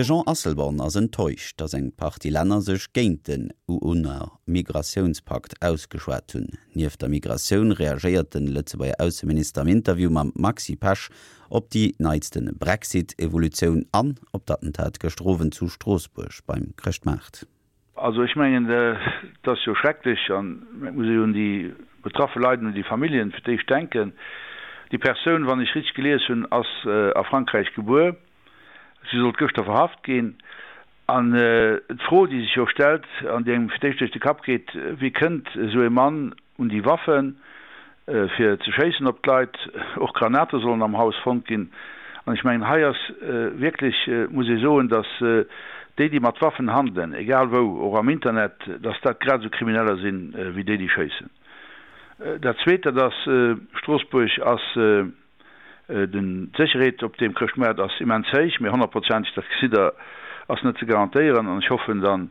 De Jean Asselborn ass enttäuscht, datt eng Partie Länner sech géint den UN-Migratiounspakt ausgeschwat hunn. Nieft der Migratioun reagéiert de Lëtzebuerger Ausseminister am Interview mam Maxi Pesch op déi neitste Brexit-Evolutioun an op d'Attentat gëschter Owend zu Stroossbuerg beim Chrëschtmaart. Also ech mengen, et ass jo schrecklech an et muss ee jo un déi betraffe Leit an un déi Familljen fir d'éischt denken. Déi Persoun, wann ech richteg gelies hunn, ass a Frankräich gebuer. Si sollt gëschter verhaft ginn. An d'Fro, déi sech jo stellt an déi engem fir d'éischt duerch de Kapp geet, Wéi kënnt esou ee Mann un déi Waffen, fir ze schéissen op d'Leit? Och Granate sollen am Haus fonnt ginn. An ech mengen, hei ass wierklech, muss ee soen, datt déi, déi mat Waffen handelen, egal wou, och am Internet, datt dat grad esou Krimineller sinn, wéi déi, déi schéissen. Dat Zweet, dat ass, Stroossbuerg ass, D'Sécherheet op deem Chrëschtmaart ass immens héich, mee honnertprozenteg, dat gesitt Der, ass net ze garantéieren. An ech hoffen dann,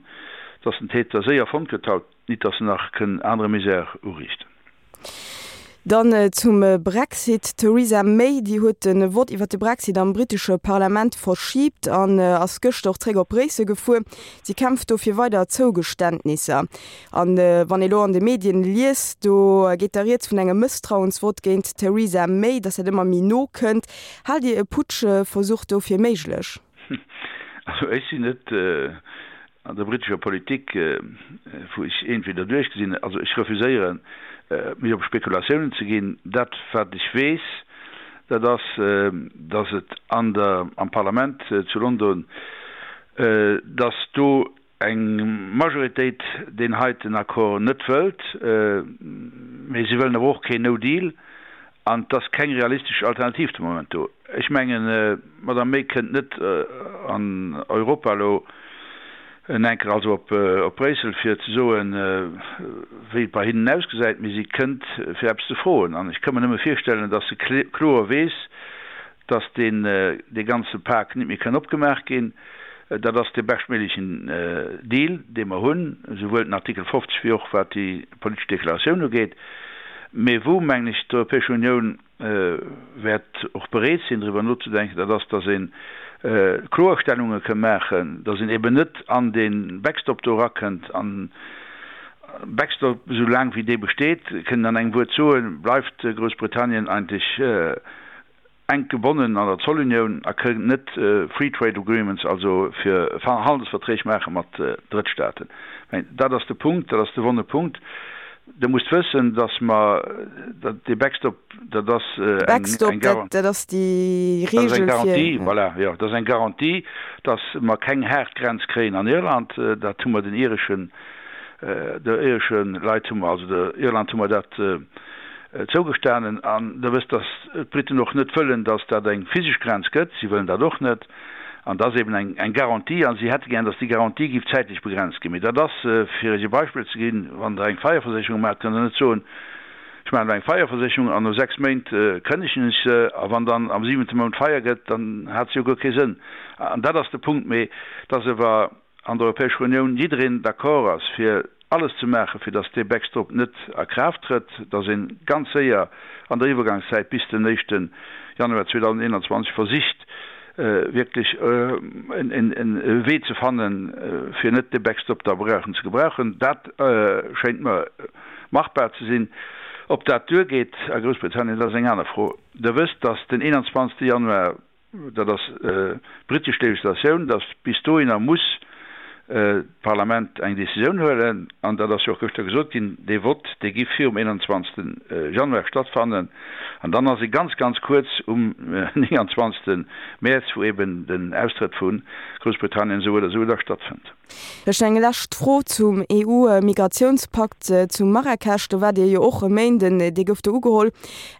dass den Täter séier fonnt gëtt haut, nit dass en nach kënn anere Misär uriichten. Dann zum Brexit, D'Theresa May, déi huet de Vott iwwer de Brexit am brittesche Parlament verschiibt an ass gëschter och zréck op Bréissel gefuer. Si kämpft do fir weider Zougeständnisser. An wann ee lo an de Medien liest, do geet da rieds vun engem Mësstrauensvott géint d'Theresa May, datt dat ëmmer méi no kënnt. Haalt Dir e Putschversuch do fir méiglech? Also ech sinn net an der brittescher Politik, wou ech entweder duerchgesinn, also ech refuséieren mech op Spekulatiounen ze ginn. Dat wat ech weess, dat ass, datt et an der am Parlament zu London, datt do eng Majoritéit deen heiten Accord net wëllt, mee si wëllen awer och keen No Deal an et ass keng realistesch Alternativ de Moment do. Ech mengen, d'Madame May kënnt net an Europa elo en enker, also op Bréissel, fir ze soen, wéi et bei hinnen ausgesäit, mee si kënnt fir eppes ze froen. An ech ka mer nëmme virstellen, datt se kloer weess, dass deen dee ganze Pak nit méi kënn opgemaach ginn. Dat ass dee beschtméiglechen Deal, dee mer hunn, esouwuel den Artikel 50 wéi och wat déi politesch Deklaratioun ugeet. Mee wou, mengen ech, d'Europäesch Unioun wäert och bereet sinn, driwwer nozedenken, dat ass, dass ee Kloerstellunge kënn maachen, dass een eben net an dee Backstop do erakënnt an Backstop, esou laang wéi dee besteet, kënn een an engem Wuert soen, bleift Groussbritannien eigentlech enk gebonnen an der Zollunioun a kënnt net Free Trade Agreements, also fir Handelsverträg maache mat Drëttstaaten. Mä dat ass de Punkt, dat ass de wonne Punkt. Der musst wëssen, datt mer dee Backstop, dat ass eng Garantie, voilà, jo, dat ass eng Garantie, datt mer keng haart Grenz kréien an Irland. Dat hu mer den ireschen, der iresche Leit hu mer, also der Irland hu mer dat Zougestanen. An Der wësst, datt d'Briten och net wëllen, datt dat eng physesch Grenz gëtt. Si wëllen dat och net. An dat ass eben eng Garantie. A si hätte gär, datt déi Garantie géif zäitlech begrenzt ginn. Mee dat ass, fir Iech e Beispill ze ginn, Wann Der eng Feierversécherung maacht, kënnt Der net soen, Ech maachen elo eng Feierversécherung an no 6 Méint kënnegen ech se. A wann dann am siwente Mount Feier gëtt, dann hat se jo guer kee Sënn. An dat ass de Punkt. Mee et ass ewer an der Europäescher Unioun jiddereen d'accord ass fir alles ze maachen, fir datt dee Backstop net a Kraaft trëtt, datt ee ganz séier an der Iwwergangszäit bis den éischte Januar 2021 versicht wierklech e Wee ze fannen, fir net dee Backstop da brauchen ze gebrauchen. Dat schéint mer machbar ze sinn. Ob dat duergeet a Groussbritannien, dat ass eng aner Fro. Der wësst, datt den 21. Januar dat ass britesch Legislatioun, datt bis dohinner muss d'Parlament eng Décisioun huelen, an dat ass jo och gëschter gesot ginn, dee Vott, dee giff virum 21. Januar stattfannen, an dann ass e ganz, ganz kuerz um 29. Mäerz, wou eben den Austrëtt vu Groussbritannien esou oder esou da stattfënnt. Vläicht eng lescht Fro zum EU-Migratiounspakt zu Marrakesch. Do waart Dir jo och e Méinden, dee gouf do ugeholl.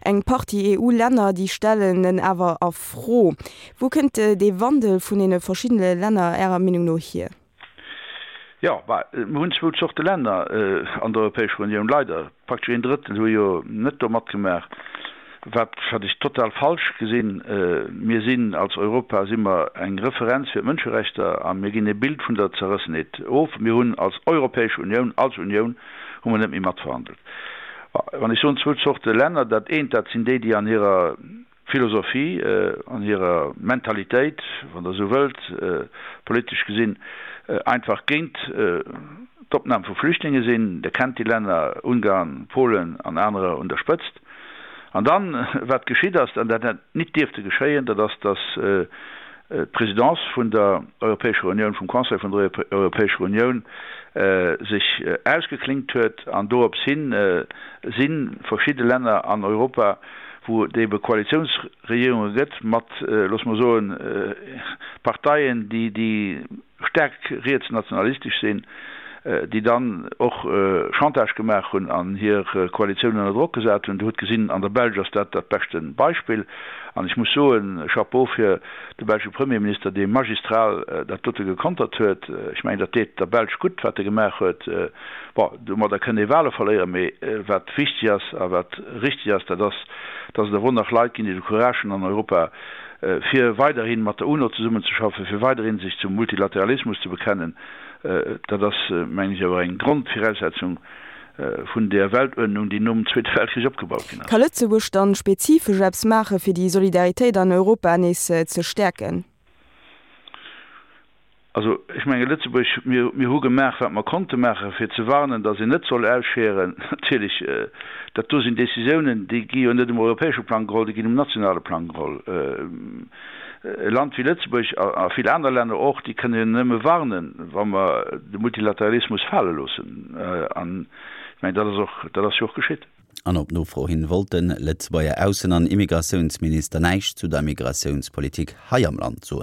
Eng Partie EU-Länner, déi stellen en awer a Fro. Wou kënnt dee Wandel vun deene verschiddene Länner Ärer Meenung no hier? Jo, bah, mer hunn zwou Zorte Länner an der Europäescher Unioun, leider. Praktesch een Drëttel hu jo net do matgemaach, wat wat ech total falsch gesinn. Mir sinn als Europa si mer eng Referenz fir d'Mënscherechter a mir ginn e Bild vun der Zerrëssenheet of. Mir hunn als Europäesch Unioun, als Unioun hu mer net méi matverhandelt. Wann ech soen zwou Zorte Länner, dat eent dat sinn déi, déi an hirer. Philosophie, an hirer Mentalitéit, wann Der esou wëllt, politesch gesinn, einfach géint d'Opnam vu Flüchtlinge sinn. Der kennt déi Länner, Ungarn, Polen an anerer un der Spëtzt. An dann, wat geschitt ass, an dat hätt nit dierfte geschéien, dat ass, datt d'Présidence vun der Europäescher Unioun, vum Conseil vun der Europäescher Unioun sech ausgeklinkt huet an dorops hin si verschidde Länner an Europa, wou et ebe Koalitiounsregierunge gëtt mat, loosse mer soen, Parteien, déi staark rietsnationalistesch sinn, déi dann och Chantage gemaach hunn an hir Koalitioun ënner Drock gesat hunn. Dir hutt gesinn, an der Belsch ass dat dat beschte Beispill. An ech muss soen, Chapeau fir de belsche Premierminister, dee magistral dat dote gekontert huet. Ech mengen, dat deet der Belsch gutt, wat e gemaach huet. Bon, domadder kënnt ee Wahle verléieren, mee wat wichteg ass a wat richteg ass, dat ass, dass et awer och nach Leit ginn, déi de Courage hunn an Europa, fir weiderhi mat der UNO zesummenzeschaffen, fir weiderhi sech zum Multilateralismus ze bekennen, dat ass, mengen ech, awer eng Grondviraussetzung vun där Weltuerdnung, déi nom Zweete Weltkrich opgebaut ginn ass. Ka Lëtzebuerg dann spezifesch eppes maachen, fir déi Solidaritéit an Europa nees ze stäerken? Also, ech menge Lëtzebuerg, mir, mir hu gemaach, wat mer konnte maachen, fir ze warnen, datt een net soll ausscheren. Natierlech, dat do sinn Décisiounen, déi gi jo net um europäesche Plang geholl, déi ginn um nationale Plang geholl. E Land wéi Lëtzebuerg a, a vill aner Länner och, déi kënne jo nëmme warnen, wa mer de Multilateralismus fale loossen. An ech mengen, dat ass och, dat ass jo och geschitt. An op Nofro hin wollt de Lëtzebuerger Aussen an Immigratiounsminister näischt zu der Migratiounspolitik hei am Land soen.